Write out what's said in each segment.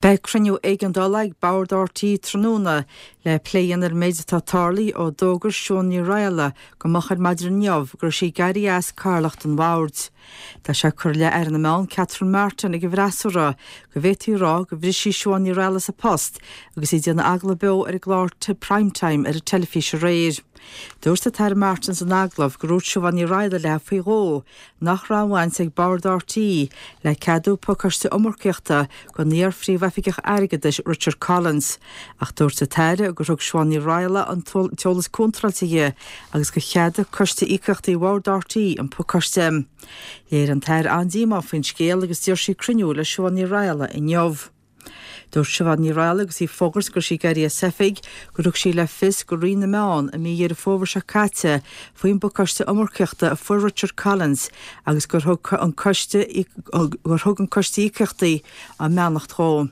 Beidh cruinniú éigeandála ag Bord RTÉ tráthnóna le plé a dhéanamh ar an méid atá tarlaithe ó d'fhógair Siún Ní Raghallaigh go moch ar maidin inniu go raibh sí ag éirí as cathaoirleacht an bhoird. Tá sé curtha i leith Aire na Meán Catherine Martin ag an bhfreasúra go bhféadfaí a rá gur bhris sí Siobhán Ní Raghallaigh as a post agus í ag déanamh agallamh beo ar an gclár Prime Time ar an teilifís aréir. Dúirt an tAire Martin san agallamh gur dhúirt Siobhán Ní Raghallaigh léi faoi dhó nach raibh aon bhaint ag Bord RTÉ le ceadú pacáiste iomarcaíochta don iar-Phríomhoifigeach Airgeadais Richard Collins, ach dúirt an tAire gur thug Siobhán Ní Raghallaigh an t-eolas contráilte di agus gur cheadaigh Coiste Íocaíochtaí Bhord RTÉ an pacáiste. Léirigh an tAire an-díomá faoin scéal agus d'iarr sí cruinniú le Siobhán Ní Raghallaigh inniu. Dúirt Siobhán Ní Raghallaigh agus í ag fógairt go raibh sí ag éirí as oifig gur thug sí le fios go Roinn na Meán i mí Dheireadh Fómhair seo caite faoin bpacáiste iomarcaíochta a fuair Richard Collins agus gur thug an coiste gur thug an Coiste Íocaíochtaí a mbeannacht dhó.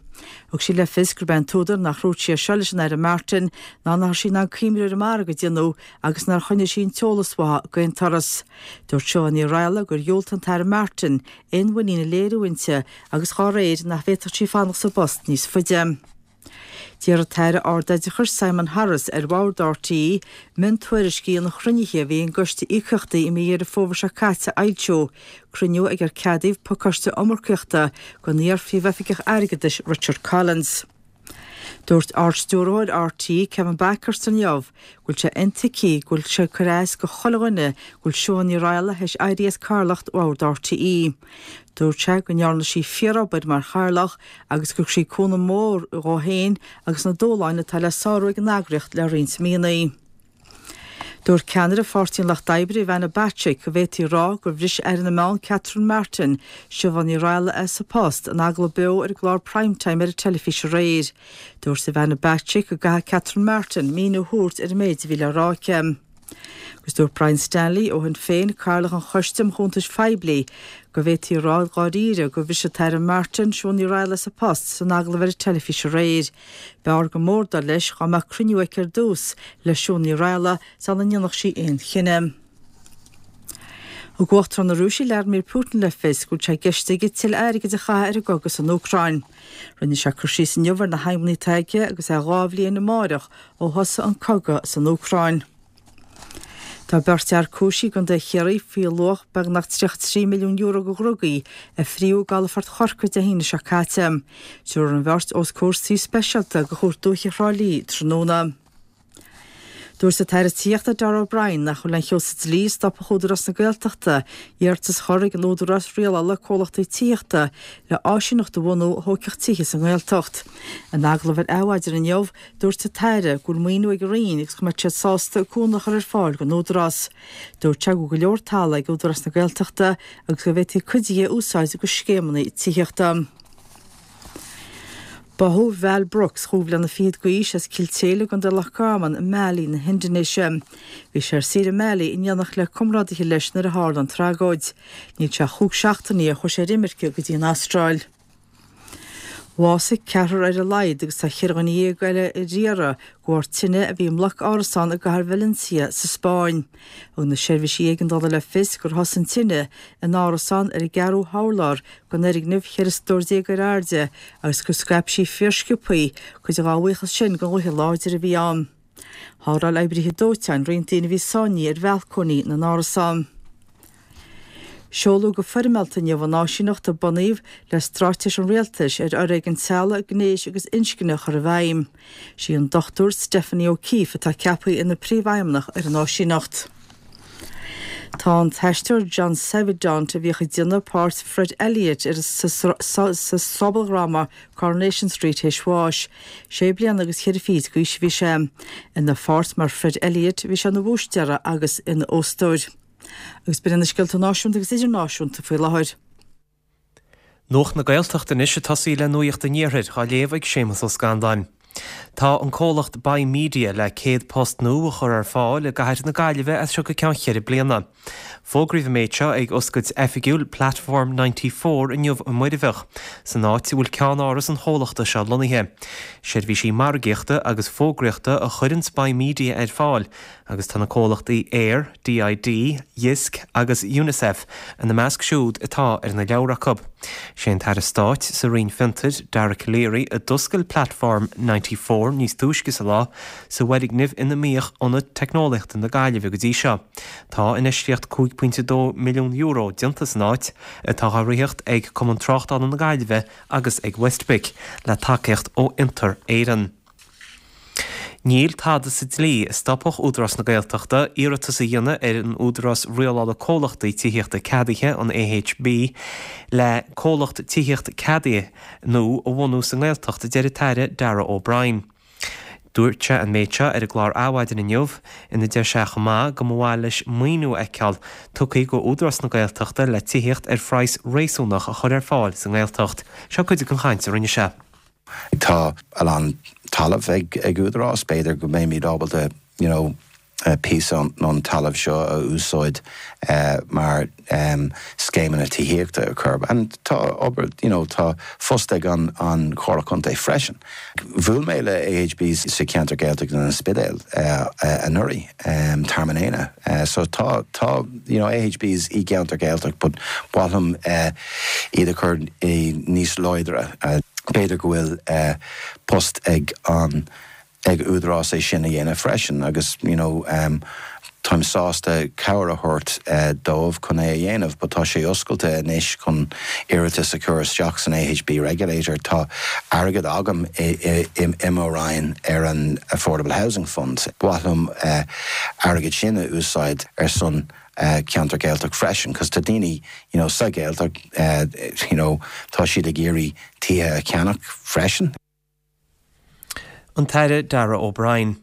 Thug sí le fios gurb é an t-údar nach ndúirt sí é seo leis an Aire Martin ná nach raibh sí in ann cuimhniú ar an margadh a déanadh agus nár choinnigh sí an t-eolas uaithi d'aon turas. Dúirt Siobhán Ní Raghallaigh gur dhiúltaigh an tAire Martin aon mhuinín a léiriú inti agus dhá réir nach bhféadfadh sí fanacht sa bpost níos faide. D'iarr an tAire Ardoideachais Simon Harris ar Bhord RTÉ miontuairiscí an chruinnithe a bhí ag an gCoiste Íocaíochtaí i mí Dheireadh Fómhair seo caite a fhoilsiú, cruinniú ag ar ceadaíodh pacáiste iomarcaíochta don iar-Phríomhoifigeach Airgeadais Richard Collins. Dúirt Ard-Stiúrthóir RTÉ, Kevin Bakhurst inniu go bhfuil sé intuigthe go bhfuil sé ag cur as go chuile dhuine go bhfuil Siún Ní Raghallaigh théis éirí as cathaoirleacht Bhord RTÉ. Dúirt sé go ndearna sí fíorobair mar chathaoirleach agus gur thug sí cúnamh mór dhó féin agus na dúshláin atá le sárú ag an eagraíocht le roinnt míonna. Dúirt ceannaire Pháirtí an Lucht Oibre, Ivana Bacik, go bhféadfaí a rá gur bhris Aire na Meán Catherine Martin Siobhán Ní Raghallaigh as a post in agallamh beo ar an gclár Prime Time ar an teilifís aréir. Dúirt Ivana Bacik go gcaithfidh Catherine Martin míniú a thabhairt ar an méid a bhí le rá aici. Agus dúirt Brian Stanley ó Shinn Féin, Cathaoirleach an Choiste um Chuntais Phoiblí, go bhféadfaí a rá dháiríre gur bhris an tAire Martin Siún Ní Raghallaigh as a post san agallamh ar an teilifís aréir. B'fhearr go mór, dar leis, dá mbeadh cruinniú aici ar dtús le Siún Ní Raghallaigh sula ndéanfadh sí aon chinneadh. Thug Uachtarán na Rúise Vladimir Putin le fios go bhfuil sé i gceist aige tuilleadh airgid a chaitheamh ar an gcogadh san Úcráin. Rinne sé cur síos inniu ar na haidhmeanna atá aige agus é 2 bhliain amáireach ó thosaigh an cogadh san Úcráin. Tá beirt fhear cúisithe i gContae Chiarraí faoi luach beagnach €33 milliún de dhrugaí a fríodh i gcalafort Chorcaí Dé hAoine seo caite. Tabharfar an bheirt os comhair suí speisialta de Chúirt Dúiche Thrá Lí tráthnóna. Dúirt an tAire Tithíochta Darragh O'Brien nach bhfuil aon cheo sa dlí a stopfadh Údarás na Gaeltachta iarratas a chur ag an Údarás Rialála Comhlachtaí Tithíochta le áisíneacht a bhunú a thógfadh tithe sa nGaeltacht. In agallamh ar Adhmhaidin inniu, Dúirt an tAire go bhfuil maoiniú ag an Roinn agus go mbeadh siad sásta cúnamh a chur ar fáil don Údarás. Dúirt sé go bhfuil go leor talaimh ag Údarás na Gaeltachta agus go bhféadfaí cuid de a úsáid do scéimeanna tithíochta. Báthadh Val Brooks, chúig bhliana fichead d'aois, as Cill tSéadhla i gContae Loch Garman i Mali na hIndinéise. Bhí sé ar saoire i Mali in éineacht le comrádaithe leis nuair a tharla an tragóid. Níl sé ach chúig seachtainí ó chuaigh sé ar imirce go dtí an Astráil. Bhásaigh ceathrar ar a laghad agus tá cheithre dhuine dhéag eile ar iarraidh de bharr tine a bhí i mbloc árasán i gcathair Valencia sa Spáinn. Thug na seirbhísí éigeandála le fios gur thosaigh an tine in árasán ar an gceathrú hurlár den fhoirgneamh 14 stór ar airde agus gur scaip sí fíorsciobthaí, cuid dá bhuíochas sin don ghaoth láidir a bhí ann. Shábháil oibrithe dóiteáin roinnt daoine a bhí sáinnithe ar bhalcóiní na n-árasán. Seoladh go foirmeálta inniu an áisíneacht a bunaíodh le straitéis an Rialtais ar fhoréigean teaghlaigh, gnéis agus inscne a chur i bhfeidhm. Sí an Dr Stephanie O'Keeffe atá ceaptha ina Príomhfheidhmeannach ar an áisíneacht. Tá an t-aisteoir John Savident, a bhíodh ag déanamh páirt Fred Elliott ar sa sobaldhráma Coronation Street théis bháis. Sé bliana agus cheithre fichid d'aois a bhí sé. Ina pháirt mar Fred Elliott bhí sé ina bhúistéara agus ina óstóir. Agus b'in iad na scéalta náisiúnta agus idirnáisiúnta faoi láthair. Nuacht na Gaeltachta anois ag tosaí le Nuacht an Iarthair, á léamh ag Séamus Ó Scanláin. Tá an comhlacht Buy Media le 100 post nua a chur ar fáil i gcathair na Gaillimhe as seo go ceann cheithre bliana. Fógraíodh an méid seo ag oscailt oifigiúil Platform 94 inniu i Muirbheach, san áit a bhfuil ceannáras an chomhlachta seo lonnaithe. Seirbhísí margaíochta agus fógraíochta a chuireanns Buy Media ar fáil agus tá na comhlachtaí Eir, DID, Jysk agus Unicef ina measc siúd atá ar na leabhra acu. Sé an tAire Stáit sa Roinn Fiontair, Dara Calleary, a d'oscail Platform 94 níos túisce sa lá, sa bhfoirgneamh ina mbíodh Ionad Teicneolaíochta na Gaillimhe go dtí seo. Tá infheistíocht €5.2 milliún déanta san áit, atá á ritheacht ag Cumann Tráchtála na Gaillimhe agus ag WestBIC, le tacaíocht ó Fhiontar Éireann. Níl tada sa dlí a stopfadh Údarás na Gaeltachta iarratas a dhéanamh ar an Údarás Rialála Comhlachtaí Tithíochta Ceadaithe, an AHB, le comhlacht tithíochta ceadaithe nua a bhunú sa nGaeltacht, a deir an tAire Darragh O'Brien. Dúirt sé an méid seo ar an gclár Adhmhaidin inniu, ina deir sé chomh maith go mba mhaith leis maoiniú a fheiceáil tugtha go Údarás na Gaeltachta le tithíocht ar phraghas réasúnach a chur ar fáil sa nGaeltacht. Seo cuid den chaint a rinne sé. Tá a lán talamh ag Údarás, b'fhéidir go mbeimid ábalta you know píosa ón talamh seo a úsáid mar scéimeanna tithíochta a chur. And tá obair, you know, tá post ag an an Chomhairle Contae freisin. Bhuail mé le AHB sa cheantar Gaeltachta in An Spidéal anuraidh, Tearmann Éanna. So tá, tá, you know, AHBs i gceantar Gaeltacht but ba mhaith liom iad a chur níos láidre. B'fhéidir go bhfuil post ag an ag Údarás é sin a dhéanamh freisin agus you know táim sásta cabhair a thabhairt dóibh chun é a dhéanamh but tá sé oscailte anois chun iarratas a chur isteach san AHB Regulator. Tá airgead agam i mo Roinn ar an Affordable Housing Fund. Ba mhaith liom airgead sin a úsáid ar son ceantar Gaeltacht freisin cos tá daoine you know sa Ghaeltacht you know tá siad ag iarraidh tithe a cheannach freisin. An tAire Darragh O'Brien.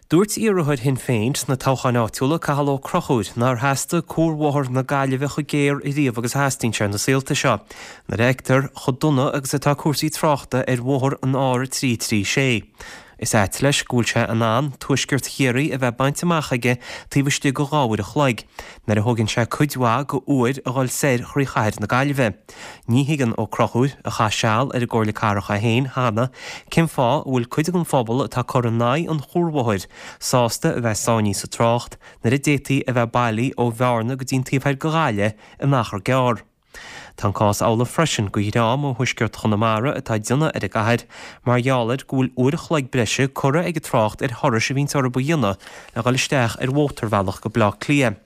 Dúirt iarrthóir Shinn Féin sna toghcháin áitiúla, Cathal Ó Conchúir, nár theastaigh cuarbhóthar na Gaillimhe chomh géar ariamh agus a theastaíonn sé na saolta seo, nuair a fheictear chomh dona agus atá cúrsaí tráchta ar bhóthar an R336. Is ait leis go bhfuil sé in ann tuaisceart Chiarraí a bheith bainte amach aige taobh istigh de dha uair a chloig, nuair a thógann sé cuid mhaith go uair a dhul soir thrí chathair na Gaillimhe. Ní thuigeann Ó Conchúir, a chaith seal ar an gComhairle Cathrach é féin cheana, cén fáth a bhfuil cuid den phobal atá ag cur in aghaidh an chuarbhóthair sásta a bheith sáinnithe sa trácht nuair a d'fhéadfaí a bheith bailí ó Bhearna go dtí an taobh thoir de Ghaillimh in achar gearr. Tá an cás amhlaidh freisin go dhream ó thuaisceart Chonamara atá ag déanamh ar an gcathair mar gheall ar go bhfuil uair a chloig breise curtha ag an trácht ar thurais a bhíonns orthu a dhéanamh le dhul isteach ar mhótarbhealach go Baile Átha Cliath.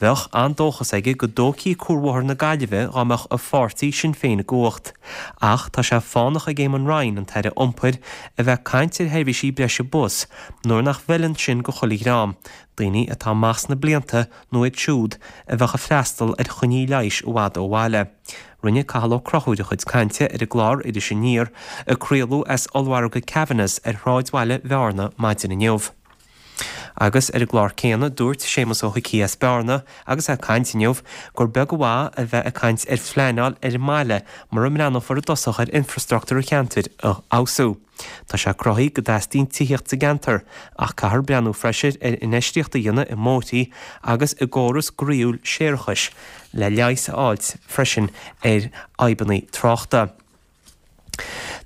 Bheadh an-dóchas aige go dtógfaí Cuarbhóthar na Gaillimhe dá mbeadh a pháirtí, Sinn Féin i gcumhacht. Ach tá sé fánach ag Eamon Ryan, an tAire Iompair, a bheith ag caint ar sheirbhísí breise bus nuair nach bhfeileann sin go chuile dhream, daoine atá amach sna blianta nó iad siúd a bheadh ag freastal ar choinní leighis i bhfad ó bhaile. Rinne Cathal Ó Conchúir a chuid cainte ar an gclár Iris Aniar a craoladh as ollmhargadh Kavanagh's ar shráidbhaile Bhearna maidin inniu. Agus ar an gclár céanna, dúirt Séamus Ó hIcí as Bearna, agus é ag caint inniu, gur beag an mhaith a bheith ag caint ar phleanáil ar an mbaile mura mbreathnófar i dtosach ar infreastruchtúr an cheantair a fheabhsú. Tá sé cruthaithe go dteastaíonn tithíocht sa gceantar, ach caithfear breathnú freisin ar infheistíocht a dhéanamh i mbóithrí agus i gcóras groíúil séarachais le leigheas a fháilt freisin ar fhadhbanna tráchta.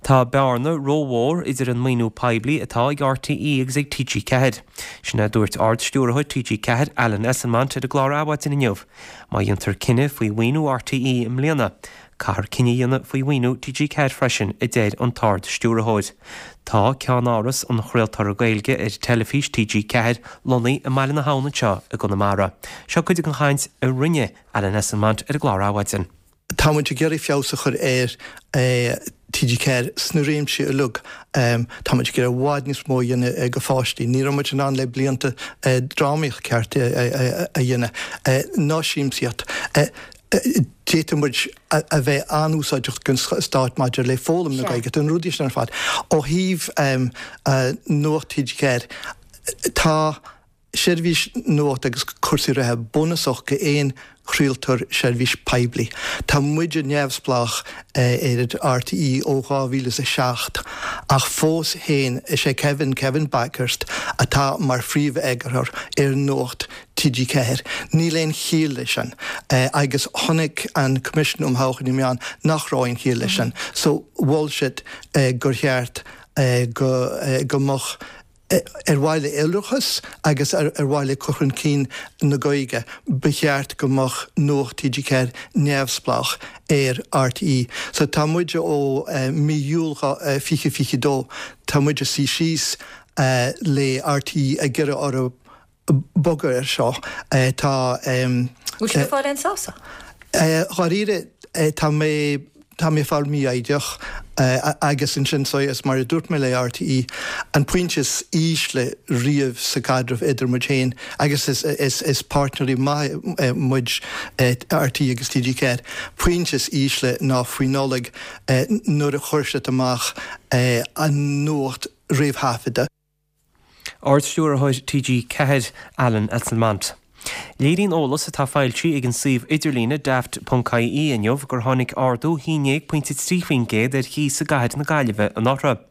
Tá bearna rómhór idir an maoiniú poiblí atá ag RTÉ agus ag TG4. Sin é a dúirt Ard-Stiúrthóir TG4, Alan Esslemont ar an gclár Adhmhaidin inniu. Má dhéantar cinneadh faoi mhaoiniú RTÉ i mbliana, caithfear cinneadh a dhéanamh faoi mhaoiniú TG4 freisin, a deir an tArd-Stiúrthóir. Tá ceannáras an chraoltóra Gaeilge ar teilifís TG4 lonnaithe i mBaile na hAbhann anseo i gConamara. Seo cuid den chaint a rinne Alan Esslemont ar an gclár Adhmhaidin. Tá muid ag iarraidh feabhas a chur ar TG4 sna réimsí uilig. Tá muid ag iarraidh i bhfad níos mó a dhéanamh go pháistí. Ní raibh muid in ann le blianta drámaíocht ceart a dhéanamh, ná siamsaíocht. D'fhéadfadh muid a bheith an-úsáideach don stát maidir le foghlaim na Gaeilge, na rudaí sin ar fad. Ó thaobh Nuacht TG4, tá. Seirbhís nuachta agus cúrsaí reatha bunúsach go aon chraoltóir seirbhís poiblí. Tá muide neamhspleách ar RTÉ ó 2007 ach fós féin is é Kevin, Kevin Bakhurst, atá mar phríomh-eagarthóir ar Nuacht TG4. Níl aon chiall leis sin agus chonaic an Coimisiún um Thodhchaí na Meán nach raibh aon chiall leis sin so mhol siad gur cheart go go mbeadh. Ar mhaithe le iolrachas agus ar mhaithe le cur chun cinn na Gaeilge, ba cheart go mbeadh Nuacht TG4 neamhspleách ar RTÉ. So tá muid ó mí Iúil 2022, tá muid ag suí síos le RTÉ ag iarraidh orthu bogadh air seo. Tá. Bhfuil sibh ag fáil aon sásamh? Dháiríre, tá mé, tá mé ag fáil mífhoighdeach agus ansin so is mar a dúirt mé le RTÉ, an pointe is ísle riamh sa gcaidreamh idir muid féin agus is, is, is páirtnéirí maithe muid, RTÉ agus TG4, pointe is ísle ná faoi Nollaig nuair a chuir siad amach an nuacht réamhthaifeadta. Ard-Stiúrthóir TG4, Alan Esslemont. Léiríonn eolas atá foilsithe ag an suíomh idirlíne daft.ie inniu gur tháinig ardú 11.3% ar chíos i gcathair na Gaillimhe anuraidh.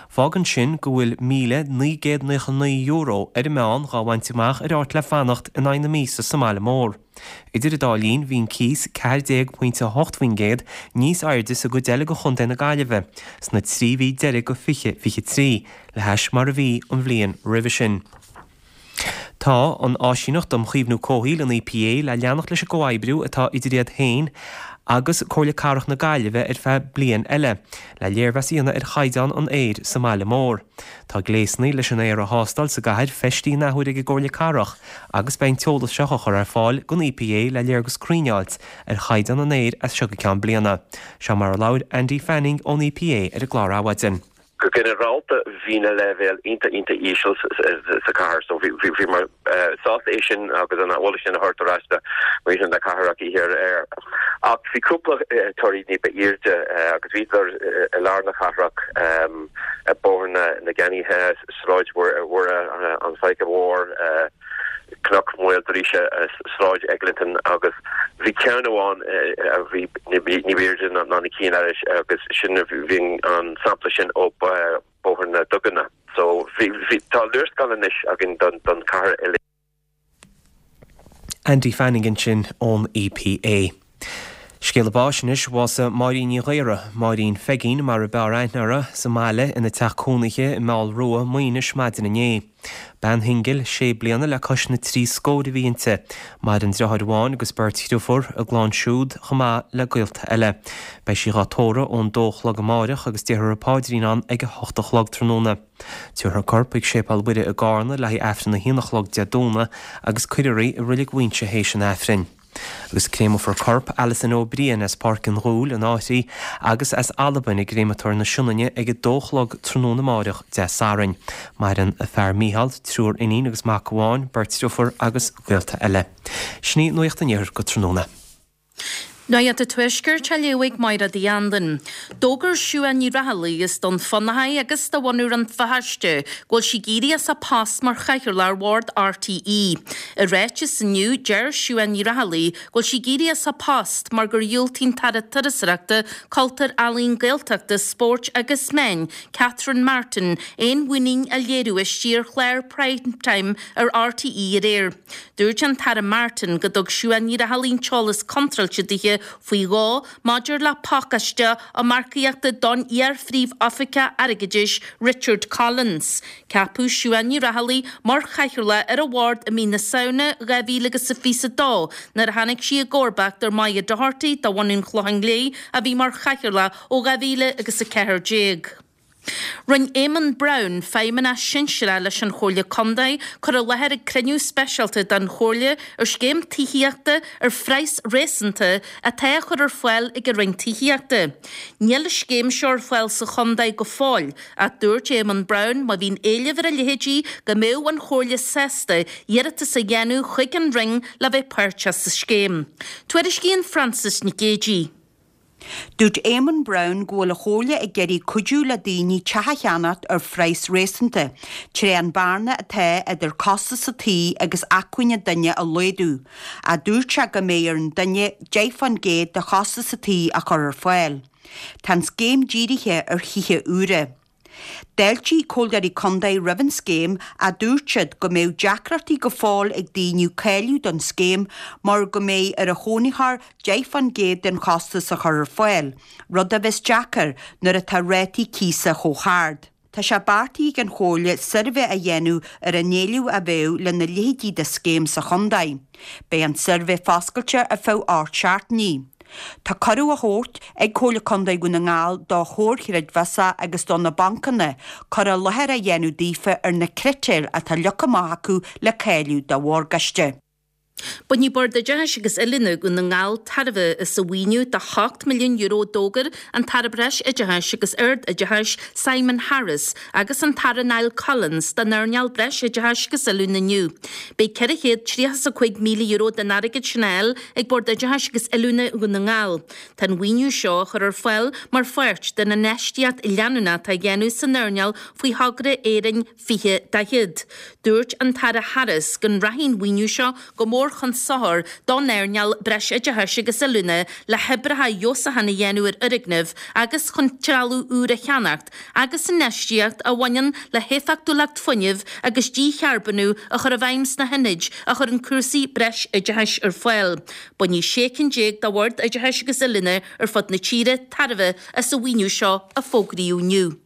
Fágann sin go bhfuil €1,999 ar an meán dhá bhaint amach ar áit le fanacht in aghaidh na míosa sa mbaile mór. Idir an dá linn, bhí an cíos 14.8% níos airde sa gcuid eile de chontae na Gaillimhe sna 3 mhí deiridh de 2023 le hais mar a bhí an bhliain roimhe sin. Tá an Áisíneacht um Chaomhnú Comhshaoil, an EPA, le leanacht leis an gcomhoibriú atá idir iad féin agus Comhairle Cathrach na Gaillimhe ar feadh bliain eile, le léirmheas a dhéanamh ar chaighdeán an aeir sa mbaile mór. Tá gléasanna leis an aer a thástáil sa gcathair feistithe an athuair ag an gComhairle Cathrach agus beidh an t-eolas seo á chur ar fáil don EPA le léargas cruinn a fháilt ar chaighdeán an aeir as seo go ceann bliana. Seo mar a labhair Andy Fanning ón EPA ar an gclár Adhmhaidin. Go ginearálta bhí na leibhéil iontach iontach íseal sa chathair so bhíomar sásta é sin agus an eolas sin a thabhairt ar ais do mhuintir na cathrach oíche aréir. Ach bhí cúpla torthaí ní ba airde agus bhíodar i lár na cathrach, Bóthar na gCeannaithe, Sráid Mhuire, an Faiche Mhór, Cnoc Mhaoildríse, Sráid Eglinton agus bhí ceann amháin a bhí ní b'airde ná na cinn eile agus sin bhí an sampla sin ó Bóthar na Duganna. So bhí tá léarscáil anois againn don chathair uilig. Andy Fanning ansin ón EPA. Scéala báis anois, bhásaigh Máirín Ní Ghaora, Máirín Pheigín mar a b'fhearr aithne uirthi, sa mbaile ina teach cónaithe i Meall Rua, Maínis maidin inné. Bean shingil, sé bliana le cois na dtrí scór a bhí inti. Maireann deartháir amháin agus beirt dhriofúr, a gclann siúd chomh maith le gaolta eile. Beidh sí dhá tórramh ón dó a chlog amáireach agus déarfar an paidrín ann ag a hocht a chlog tráthnóna. Tabharfar a corp chuig Séipéal Mhuire i gCarna le haghaidh Aifreann a haon a chlog Dé Domhnaigh agus cuirfear í i Reilig Mhuighinse théis an Aifrinn. Agus créamfar corp Alison Ó Briain as Páirc an Ghuail, an Fhairche, agus as Albain i gCréamatóir na Sionainne ag a dó a chlog tráthnóna amáireach, Dé Sathairn. Maireann a fear Mícheál, triúr iníon agus mac amháin, beirt driofúr agus gaolta eile. Sin í Nuacht an Iarthair go tráthnóna. Nuacht an Tuaiscirt á léamh ag Máire Uí Anluain. D'fhógair Siuán Ní Raghallaigh, as Dún Fionnachaidh agus de bhunadh Rann na Feirste, go bhfuil sí ag éirí as a post mar chathaoirleach ar bhord RTÉ. I ráiteas inniu, deir Siuán Ní Raghallaigh go bhfuil sí ag éirí as a post mar gur dhiúltaigh an tAire Turasóireachta, Cultúir, Ealaíon, Gaeltachta, Spóirt agus Meán, Catherine Martin, aon mhuinín a léiriú aisti ar chlár Prime Time ar RTÉ aréir. Dúirt an tAire Martin go dtug Siuán Ní Raghallaigh an t-eolas contráilte dithe faoi dhó maidir le pacáiste iomarcaíochta don iar-Phríomh-Oifigeach Airgeadais Richard Collins. Ceapadh Siuán Ní Raghallaigh mar chathaoirleach ar an bhord i mí na Samhna 2022 nuair a tháinig sí i gcomharbacht ar Moya Doherty de bhunadh an Chlocháin Léith a bhí mar chathaoirleach ó 2014. Rinne Éamonn Browne, Feidhmeannach Sinsearach leis an Chomhairle Contae, cur i láthair ag cruinniú speisialta den Chomhairle ar scéim tithíochta ar phraghas réasúnta atá á chur ar fáil ag an Roinn Tithíochta. Níl an scéim seo ar fáil sa chontae go fóill ach dúirt Éamonn Browne má bhíonn éileamh ar a leithéidí go mbeadh an Chomhairle sásta iarratas a dhéanamh chuig an Roinn le bheith páirteach sa scéim. Tuairiscíonn Frances Nic Géadaigh. Dúirt Éamonn Browne go bhfuil an Chomhairle ag iarraidh cuidiú le daoine teach a cheannacht ar phraghas réasúnta, tré an bearna atá idir costas an tí agus acmhainn an duine a laghdú, ach dúirt sé go mbeidh ar an duine 10% de chostas an tí a chur ar fáil. Tá an scéim dírithe ar thithe úra. D'fháiltigh Comhairleoirí Contae roimh an scéim ach dúirt siad go mbeadh deacrachtaí go fóill ag daoine cáiliú don scéim mar go mbeidh ar an chónaitheoir 10% den chostas a chur ar fáil, rud a bheas deacair nuair atá rátaí cíosa chomh hard. Tá sé beartaithe ag an Chomhairle suirbhé a dhéanamh ar an éileamh a bheadh lena leithéidí de scéim sa chontae. Beidh an suirbhé foscailte ar feadh 8 seachtainí. Tá cuireadh á thabhairt ag Comhairle Contae Dhún na nGall do chomhair chreidmheasa agus do na bancanna cur i láthair a dhéanamh daofa ar na critéir atá leagtha amach acu le cáiliú do mhorgáiste. Bainfidh Bord Oideachais agus Oiliúna Dhún na nGall tairbhe as an mhaoiniú de €8 milliún a d'fhógair an tAire Breis-Oideachais agus Ard-Oideachais Simon Harris agus an tAire Niall Collins don earnáil Breis-Oideachais agus Oiliúna inniu. Beidh €435,000 den airgead sin á fháil ag Bord Oideachais agus Oiliúna Dhún na nGall. Tá an mhaoiniú seo á chur ar fáil mar pháirt den infheistíocht leanúnach atá á dhéanamh san earnáil faoi thogra Éirinn 2040. Dúirt an tAire Harris go rachaidh an mhaoiniú seo go mór chun sochair don earnáil Breisoideachais agus Oiliúna le hoibreacha feabhsúcháin a dhéanamh ar fhoirgnimh agus chun trealamh úr a cheannacht agus infheistíocht a bhaineann le héifeachtúlacht fuinnimh agus dícharbónú a chur i bhfeidhm sna hionaid a chuireann cúrsaí breisoideachais ar fáil. Bainfidh 16 cinn de Bhoird Oideachais agus Oiliúna ar fud na tíre tairbhe as an mhaoiniú seo a fógraíodh inniu.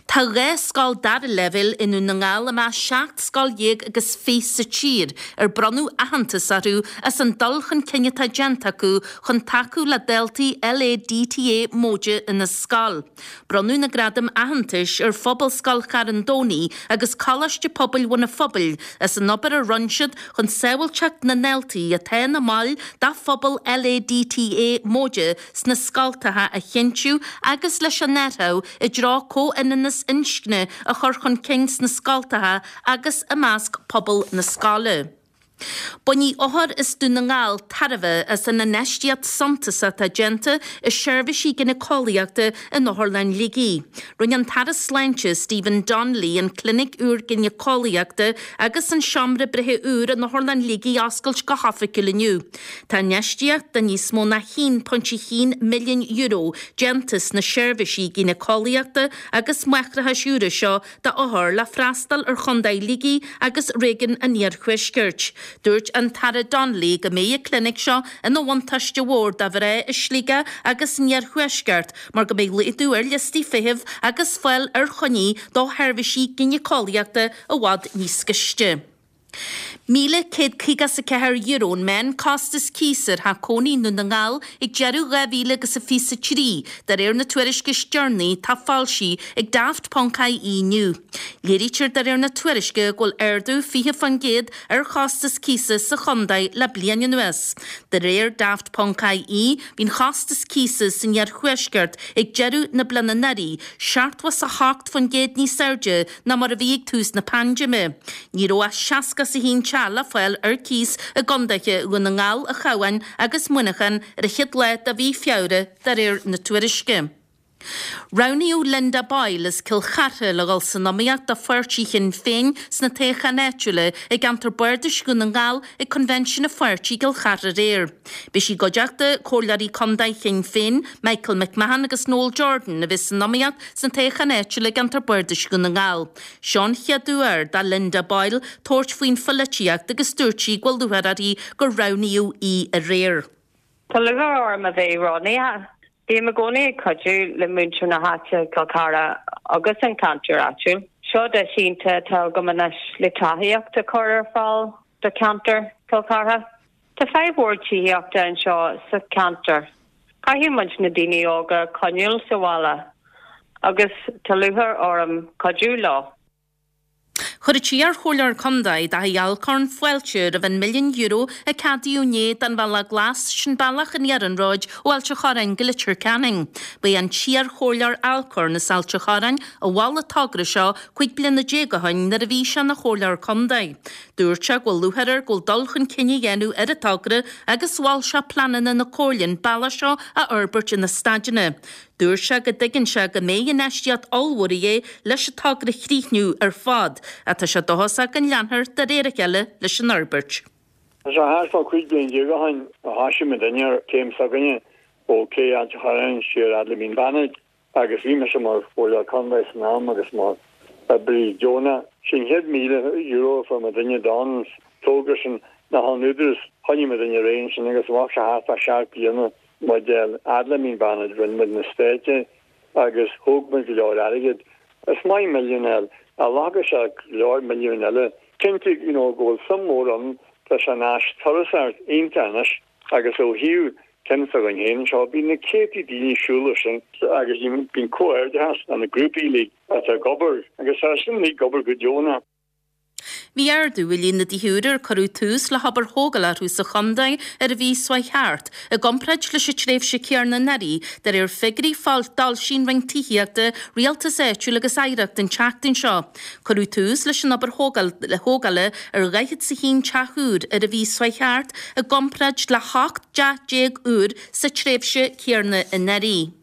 Tá 12 scoil dara leibhéal i nDún na nGall i measc 17 scoil agus 20 sa tír ar bronnadh aitheantas orthu as an dul chun cinn atá déanta acu chun tacú le daltaí LADTA móide ina scoil. Bronnadh na gradaim aitheantais ar Phobalscoil Charn Domhnaigh agus Coláiste Pobail Bhun an Phobail as an obair a rinne siad chun sábháilteacht na ndaltaí atá ina mbaill de phobal LADTA móide sna scoltacha a chinntiú agus leis an athrú i dtreo comhionannas inscne a chur chun cinn sna scoltacha agus i measc pobal na scoile. Bainfidh othair as Dún na nGall tairbhe as an infheistíocht suntasach atá déanta i seirbhísí gineaceolaíochta in Otharlann Shligigh. Rinne an tAire Sláinte Stephen Donnelly an clinic úr gineaceolaíochta agus an seomra breithe úr in Otharlann Shligigh a oscailt go hoifigiúil inniu. Tá infheistíocht de níos mó ná €1.1 milliún déanta sna seirbhísí gínéiceolaíochta agus máithreachais úra seo d'othair le freastal ar Chontae Shligigh agus réigiún an Iarthuaiscirt. Dúirt an tAire Donnelly go mbeidh an clinic seo ina bhuntáiste mhór do mhná i Sligeach agus san Iarthuaisceart mar go mbeidh laghdú ar liostaí feithimh agus fáil ar choinní do sheirbhísí gínéiceolaíochta i bhfad níos gaiste. €1,154 an meán-costas cíosa ar theach cónaí i nDún na nGall ag deireadh 2023, de réir na tuairisce is deireanaí atá foilsithe ag Daft Ponc IE inniu. Léirítear de réir na tuairisce go bhfuil ardú 20% ar chostas cíosa sa chontae le bliain anuas. De réir Daft Ponc IE, bhí an chostas cíosa san iarthuaisceart ag deireadh na bliana anuraidh 78% níos airde ná mar a bhí ag tús na paindéime. Ní raibh ach 61 teach le fáil ar cíos i gcontaetha Dhún na nGall, an Chabháin agus Muineachán ar an chéad lá de mhí Feabhra, de réir na tuairisce. Roghnaíodh Linda Boyle as Cill Chartha le dhul san iomaíocht do pháirtí Shinn Féin sna toghcháin áitiúla i gceantar Bardais Dhún na nGall ag Coinbhinsiún an pháirtí i gCill Chartha aréir. Beidh sí i gcuideachta Comhairleoirí Contae Shinn Féin, Michael McMahon agus Noel Jordan a bheas san iomaíocht sna toghcháin áitiúla i gceantar Bardais Dhún na nGall. Seo an chéad uair do Linda Boyle tabhairt faoin pholaitíocht agus dúirt sí go bhfuil lúcháir uirthi gur roghnaíodh í aréir. Tá lúcháir orm a bheith roghnaithe. Bím i gcónaí ag cuidiú le muintir na háite, Cill Chartha agus an ceantar áitiúil. Seo deis iontach atá agam anois le tacaíocht a chur ar fáil do cheantar Chill Chartha. Tá fadhb mhór tithíochta anseo sa cheantar. Caithfidh muid na daoine óga a choinneáil sa bhaile agus tá lúcháir orm cuidiú leo. Chuir an t-iar-chomhairleoir contae, Daithí Alcorn, fáilte roimh an milliún euro a ceadaíodh inné don Bhealach Glas, sin bealach an iarnróid ó Ailt an Chorráin go Leitir Ceanainn. Ba é an t-iar-chomhairleoir Alcorn as Ailt an Chorráin a mhol an togra seo 15 bliana ó shin nuair a bhí sé ina chomhairleoir contae. Dúirt sé go bhfuil lúcháir air go bhfuil dul chun cinn á dhéanamh ar an togra agus mhol sé pleananna na Comhairle an bealach seo a fhorbairt ina staideanna. Dúirt sé go dtuigeann sé go mbeidh infheistíocht ollmhór a dhíth leis an togra a chríochnú ar fad ach tá sé dóchasach go leanfar de réir a chéile leis an fhorbairt. Tá sé thart fá 15 bliain ó shin a thoisigh muidinne ar chéim s'againne ó Cé Ailt an Chorráin siar fhad le Mín Bannaid. Agus bhí mise mar Chomhairleoir Contae san am agus mar oibrí deonach. Sé an chéad €1,000 a fuair muidinne don togra sin ná ón Údarás. Choinnigh muidinne ar aghaidh ansin agus bheadh sé thart fá sheacht bliana muid fhad le Mín Bannaid. Rinne muid na stáití agus thóg muid go leor airgid. Is maith milliún a fháil. Ghlacfadh sé go leor milliúin eile. Cinnte, you know, go bhfuil suim mhór ann, tá sé ina áis turasóireachta iontach anois agus ó thaobh ceann s'againn féin anseo, bíonn na céadtaí daoine ag siúl air sin agus bíonn comhghairdeachas le na grúpaí uilig atá ag obair agus tá sin uilig ag obair go deonach. Bhí ardú i líon na dtithe úra ar cuireadh tús le hobair thógála orthu sa chontae ar an mhí seo chuaigh thart, i gcomparáid leis an tréimhse chéanna anuraidh, de réir figiúirí a d'fhoilsigh an Roinn Tithíochta, Rialtais Áitiúil agus Oidhreachta an tseachtain seo. Cuireadh tús leis an obair thógála ar 41 teach úr ar an mhí seo chuaigh thart, i gcomparáid le 18 dteach úr sa tréimhse chéanna anuraidh.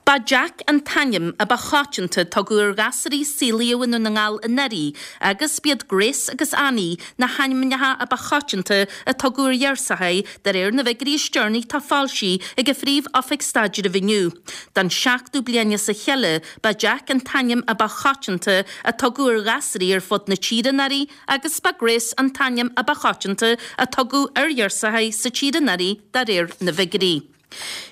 Ba Jack an t-ainm a ba choitianta a tugadh ar ghasúraí a saolaíodh i nDún na nGall anuraidh agus b'iad Grace agus Annie na hainmneacha a ba choitianta a tugadh ar ghirseachaí de réir na bhfigiúirí is deireanaí atá foilsithe ag an Phríomh-Oifig Staidrimh inniu. Don seachtú bliain as a chéile ba Jack an t-ainm a ba choitianta a tugadh ar ghasúraí ar fud na tíre anuraidh agus ba Grace an t-ainm a ba choitianta a tugadh ar ghirseachaí sa tír anuraidh de réir na bhfigiúirí.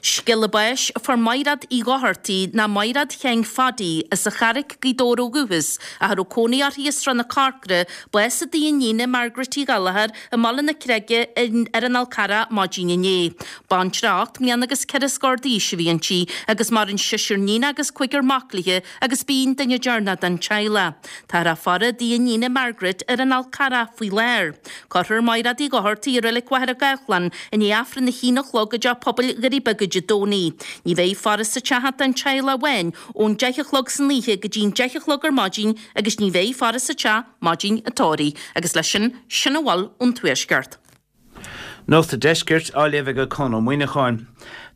Scéala báis a fuair Maighreád Uí Dhochartaigh ná Maighreád Sheáin Phaidí as an Charraic, Gaoth Dobhair ó dhúchas, ach a raibh cónaí uirthi i Srath na Corcra, bás i dtigh a iníne Margaret Uí Ghallchóir i mBaile na Creige ar an Fhál Carrach maidin inné. Baintreach 8 mbliana agus ceithre scór d'aois a bhí inti agus maireann seisear níon agus cúigear mac léi agus b'í an duine deireanach den teaghlach. Táthar á faire i dtigh a iníne Margaret ar an Fhál Carrach faoi láthair. Cuirfear Maighreád Uí Dhochartaigh i Reilig Mhachaire Gathlán i ndiaidh Aifreann a haon a chlog i dTeach Pobail Dhoirí Beaga Dé Domhnaigh. Ní bheidh faire sa teach ach don teaghlach amháin ón deich a chlog san oíche go dtí'n deich a chlog ar maidin agus ní bheidh faire sa teach maidin an tórraimh. Agus leis sin, sin a bhfuil ón Tuaisceart. Nuacht an Deiscirt á léamh ag Conn Ó Muíneacháin.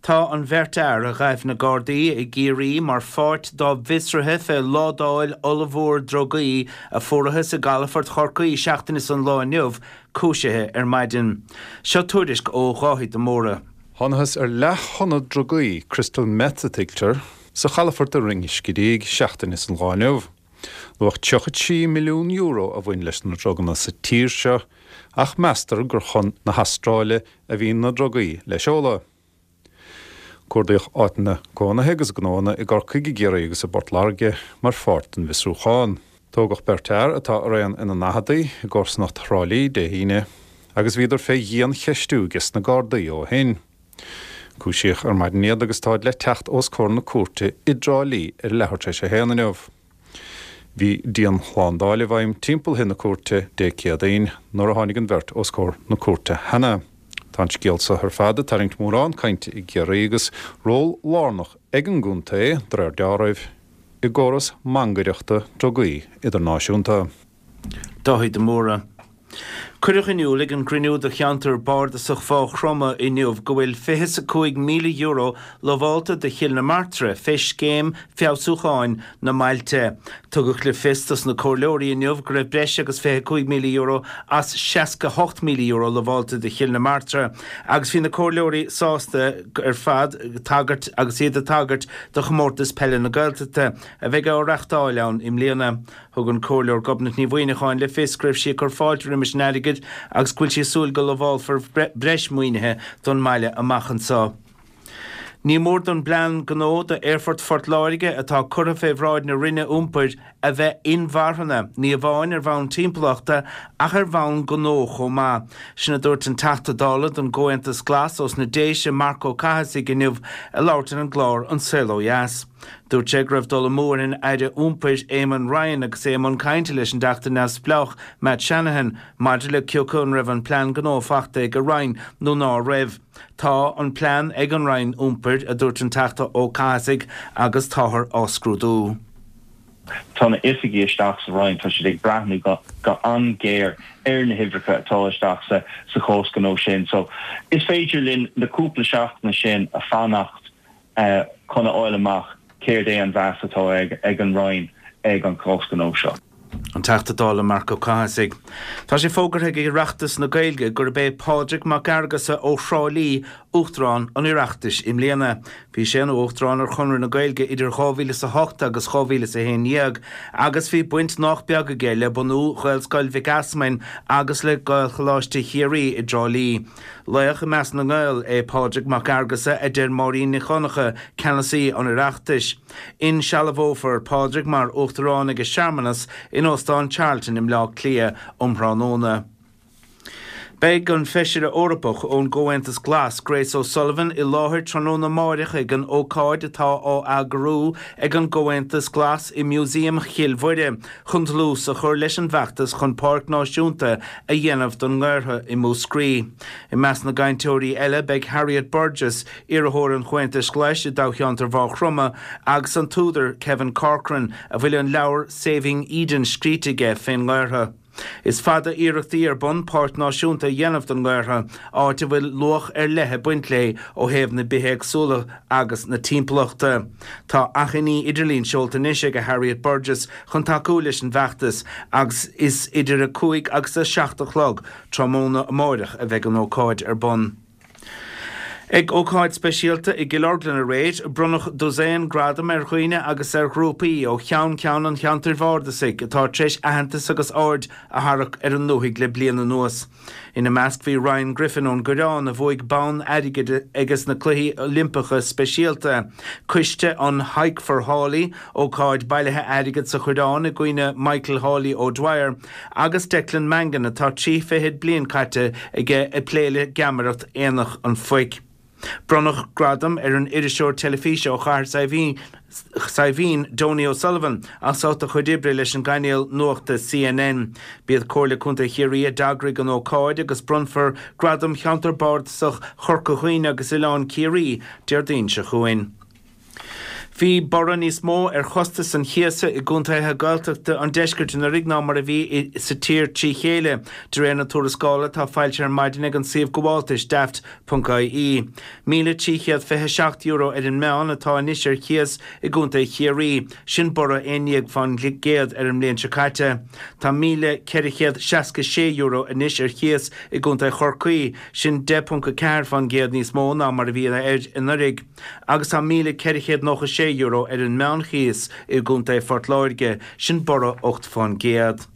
Tá an bheirt fhear a ghaibh na Gardaí i gCiarraí mar pháirt dá bhfiosruithe fé ládáil ollmhór drugaí a fuarathas i gcalafort Chorcaí seachtain is an lá inniu cúisithe ar maidin. Seo tuairisc ó Dháithí de Mórdha. Thánathas ar leath-thonna drugaí, crystal meth a tuigtear, sa chalafort i Rinn Scidígh seachtain is an lá inniu. Luach €33 milliún a bhain leis na druganna sa tír seo ach meastar gur chun na hAstráile a bhí na drugaí le seoladh. Cuardaíodh áiteanna cónaithe agus gnóanna i gCorcaigh, i gCiarraí agus i bPort Láirge mar pháirt den bhfiosrúchán. Tógadh beirt fhear, atá araon ina ndaicheadaí, i gcomharsanacht Thrá Lí Dé hAoine agus bhíodar fé dhian-cheistiú ages na Gardaí ó shin. Cúisíodh ar maidin iad agus táid le teacht os comhair na cúirte i dTrá Lí ar a leathuair tar éis a haon inniu. Bhí dianshlándáil i bhfeidhm timpeall thigh na cúirte Dé Céadaoin nuair a tháinig an bheirt os comhair na cúirte cheana. Tá an scéal seo ar fad ag tarraingt mórán cainte i gCiarraí agus ról lárnach ag an gcontae, de réir dealraimh, i gcóras mangaireachta drugaí idirnáisiúnta. Dáithí de Mórdha. Cuireadh in iúl ag an gcruinniú do cheantar bardasach Mhaigh Chromtha inniu go bhfuil €25,000 lamhálta do Chill na Martra fé scéim feabhsúcháin na mbailte. Tugadh le fios dos na comhairleoirí inniu go raibh breis agus €25,000 as €68,000 lamhálta do Chill na Martra agus bhí na comhairleoirí sásta ar fad tagairt agus iad ag tagairt do Chomórtas Peile na Gaeltachta a bheidh á reachtáil ann i mbliana. Thug an Comhairleoir Gobnait Ní Mhuineacháin le fios go raibh sí ag cur fáilte roimis an airgead agus go bhfuil sí ag súil go lamhálfar breis maoinithe don mbaile amach anseo. Ní mór don bplean gnó do Aerfort Phort Láirge atá curtha fé bhráid na Roinne Iompair a bheith inmharthana, ní amháin ar bhonn timpeallachta ach ar bhonn gnó chomh maith. Sin a dúirt an Teachta Dála don gComhaontas Glas ós na Déise, Marc Ó Cathasaigh inniu ag labhairt ar an gclár An Saol Ó Dheas. Dúirt sé go raibh dul amú ar an Aire Iompair Eamon Ryan agus é i mbun cainte leis an dTeachta neamhspleách Matt Shanahan maidir le cioca an raibh an plean gnó fachta ag a Roinn nó ná raibh. Tá an plean ag an Roinn Iompair, a dúirt an Teachta Ó Cathasaigh, agus táthar á scrúdú. Tá na oifigigh isteach sa Roinn, tá siad ag breathnú go an-ghéar ar na huimhreacha atá isteach sa chás gnó sin. So is féidir linn na cúpla seachtaine sin a fanacht chun a fháil amach céard é an mheas atá ag an Roinn ag an chás gnó seo. An Teachta Dála Marc Ó Cathasaigh. Tá sé fógartha ag Oireachtas na Gaeilge gurb é Pádraig Mac Fhearghusa ó Thrá Lí Uachtarán an Oireachtais i mbliana. Bhí sé ina Uachtarán ar Chonradh na Gaeilge idir 2008 agus 2011 agus bhí baint nách beag aige le bunú Ghaelscoil Mhic Easmainn agus le Gaelcholáiste Chiarraí i dTrá Lí. Laoch i measc na nGael é Pádraig Mac Fhearghusa, a deir Máirín Nic Dhonncha, Ceannasaí an Oireachtais. Insealbhófar Pádraig mar Uachtarán ag searmanas in Óstán Charlton i mBleá Cliath um thráthnóna. Beidh an Feisire Eorpach ón gComhaontas Glas, Grace O'Sullivan, i láthair tráthnóna amáireach ag an ócáid atá á eagrú ag an gComhaontas Glas i Músaem Chill Mhuire chun dlús a chur leis an bhfeachtas chun Páirc Náisiúnta a dhéanamh don nGaorthadh i Múscraí. I measc na gcainteoirí eile beidh Harriet Burgess, iarrthóir an Chomhaontais Ghlais i dtoghcheantar Mhaigh Chromtha, agus an t-údar Kevin Corcoran, a bhfuil an leabhar Saving Eden scríte aige fén nGaorthadh. Is fada iarrachtaí ar bun páirc náisiúnta a dhéanamh don nGaorthadh, áit a bhfuil luach ar leith ag baint léi ó thaobh na bithéagsúlachta agus na timpeallachta. Tá achainí idirlín seolta anois ag Harriet Burgess chun tacú leis an bhfeachtas agus is idir 5 agus 7 a chlog tráthnóna amáireach a bheidh an ócáid ar bun. Ag ócáid speisialta i gCill Orglan aréir, bronnadh dosaen gradam ar dhaoine agus ar ghrúpaí ó cheann ceann an cheantair bhardasaigh atá tar éis aitheantas agus aird a tharrac ar an ndúthaigh le bliain anuas. Ina measc bhí Ryan Griffin ón gCoireán a bhuaigh bonn airgid ages na Cluichí Oilimpeacha Speisialta, coiste an Hike for Hawley, ócáid bailithe airgid sa Choireán i gcuimhne Michael Hawley O'Dwyer, Agus Declan Mangan, atá trí fichid bliain caite aige ag plé le geamaireacht Aonach an Phoic. Bronnadh gradam ar an iriseoir teilifíse ó Chathair Saidhbhín, Donie O'Sullivan, as ucht a chuid oibre leis an gcainéal nuachta CNN. B'iad Comhairle Contae Chiarraí a d'eagraigh an ócáid agus bronnfar Gradam Cheantar Bardasach Chorca Dhuibhne agus Oileán Ciarraí Déardaoin seo chugainn. Bhí borradh níos mó ar chostas an chíosa i gcontaetha Gaeltachta an deiscirt anuraidh ná mar a bhí sa tír trí chéile, de réir na tuarascála atá foilsithe ar maidin ag an suíomh gabháltais Daft. ie. €1,327 ar an meán atá anois ar chíos i gcontae Chiarraí, sin borradh 11% ar an mbliain seo caite. Tá €1,466 anois ar chíos i gcontae Chorcaí, sin 10.4% níos mó ná mar a bhí air anuraidh. agus tá €1,496 ar an meánchíos i gContae Phort Láirge, sin borradh 8%.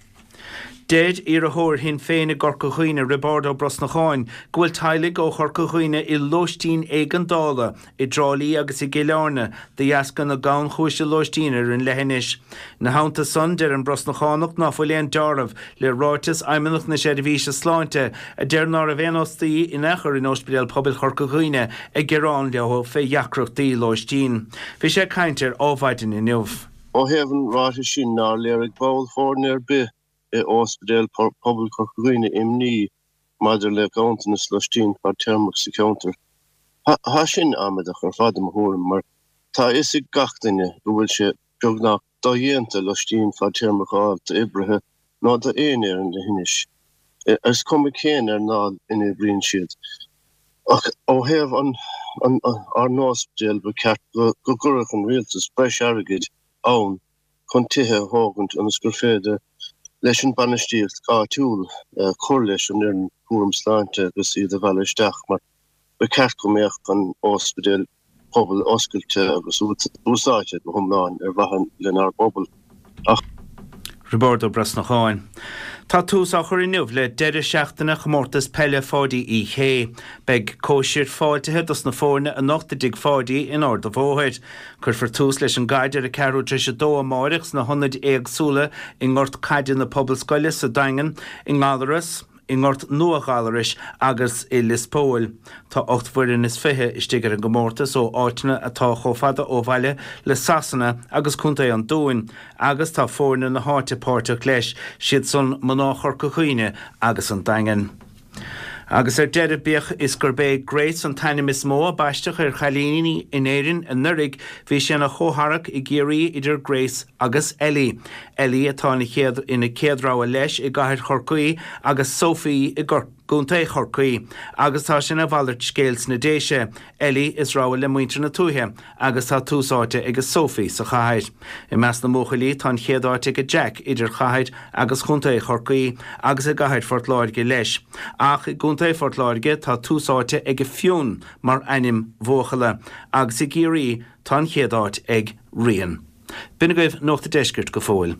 Deir iarrthóir Shinn Féin i gCorca Dhuibhne, Roibeárd Ó Brosnacháin, go bhfuil teaghlaigh ó Chorca Dhuibhne i lóistín éigeandála i dTrá Lí agus i gCill Airne de dheasca na gannchúise lóistín ar an leithinis. Ina theannta san, deir an Brosnachánach ná fuil aon deáramh le ráiteas Fheidhmeannacht na Seirbhíse Sláinte a deir ná raibh aon fhostaí in aon chor in Ospidéal Pobail Chorca Dhuibhne ag gearán leo fé dheacrachtaí lóistín. Bhí sé ag caint ar Ádhmhaidin inniu. Ó thaobh an ráitis sin nár léirigh ball foirne ar bith i Ospidéal Pobail Chorca Dhuibhne imní maidir le ganntanas loistín fadtéarmach sa cheantar. Tá sin amaideach ar fad i mo thuairim mar tá a fhios ag gach duine go bhfuil sé beagnach dodhéanta loistín fadtéarmach a fháil d'oibrithe nó d'éinne ar an leithinis, is cuma cén earnáil ina oibríonn siad. Ach ó thaobh ár n-ospidéal, ba cheart go gcuirfeadh an rialtas breis airgid ann chun tithe a thógaint ionas gur féidir leis an bainistíocht áitiúil cur leis an fhoireann cúram sláinte agus iad a mhealladh isteach mar ba cheart go mbeadh an ospidéal pobail oscailte agus úsáidte go hiomlán ar mhaithe lenár bpobal. Ach. Roibeárd Ó Brosnacháin. Tá tús á chur inniu le deireadh seachtaine Chomórtas Peile Pháidí Uí Shé. Beidh cóisir fáiltithe dos na foirne anocht i dTigh Pháidí in Ard a' Bhóthair. Cuirfear tús leis an gcaid ar a ceathrú tar éis a dó amáireach sna hionaid éagsúla i ngort caide na Pobalscoile sa Daingean, i nGallaras, i nGort Nua Ghallarais agus i Lios Póil. Tá 8 bhfoireann is 20 istigh ar an gcomórtas ó áiteanna atá chomh fada ó bhaile le Sasana agus Contae an Dúin agus tá foirne na háite páirteach leis, siad san mná Chorca Dhuibhne agus an Daingean. Agus ar deireadh, bíodh is gurb é Grace an t-ainm is mó a baisteadh ar chailíní in Éirinn anuraidh, bhí sé ina chomhtharrac i gCiarraí idir Grace agus Ellie. Ellie atá ina chéad ina céad rogha leis i gcathair Chorcaí agus Sophie i gCorcaigh. gContae Chorcaí, agus tá sé ina mhalairt scéil sna Déise, Ellie is rogha le muintir na tuaithe agus tá tús áite ag Sophie sa chathair. I measc na mbuachaillí tá an chéad áit ag Jack idir chathair agus chontae Chorcaí agus i gcathair Phort Láirge leis. Ach i gcontae Phort Láirge tá tús áite ag Fionn mar ainm bhuachalla agus i gCiarraí tá an chéad áit ag Rian. B'in agaibh Nuacht a' Deiscirt go fóill.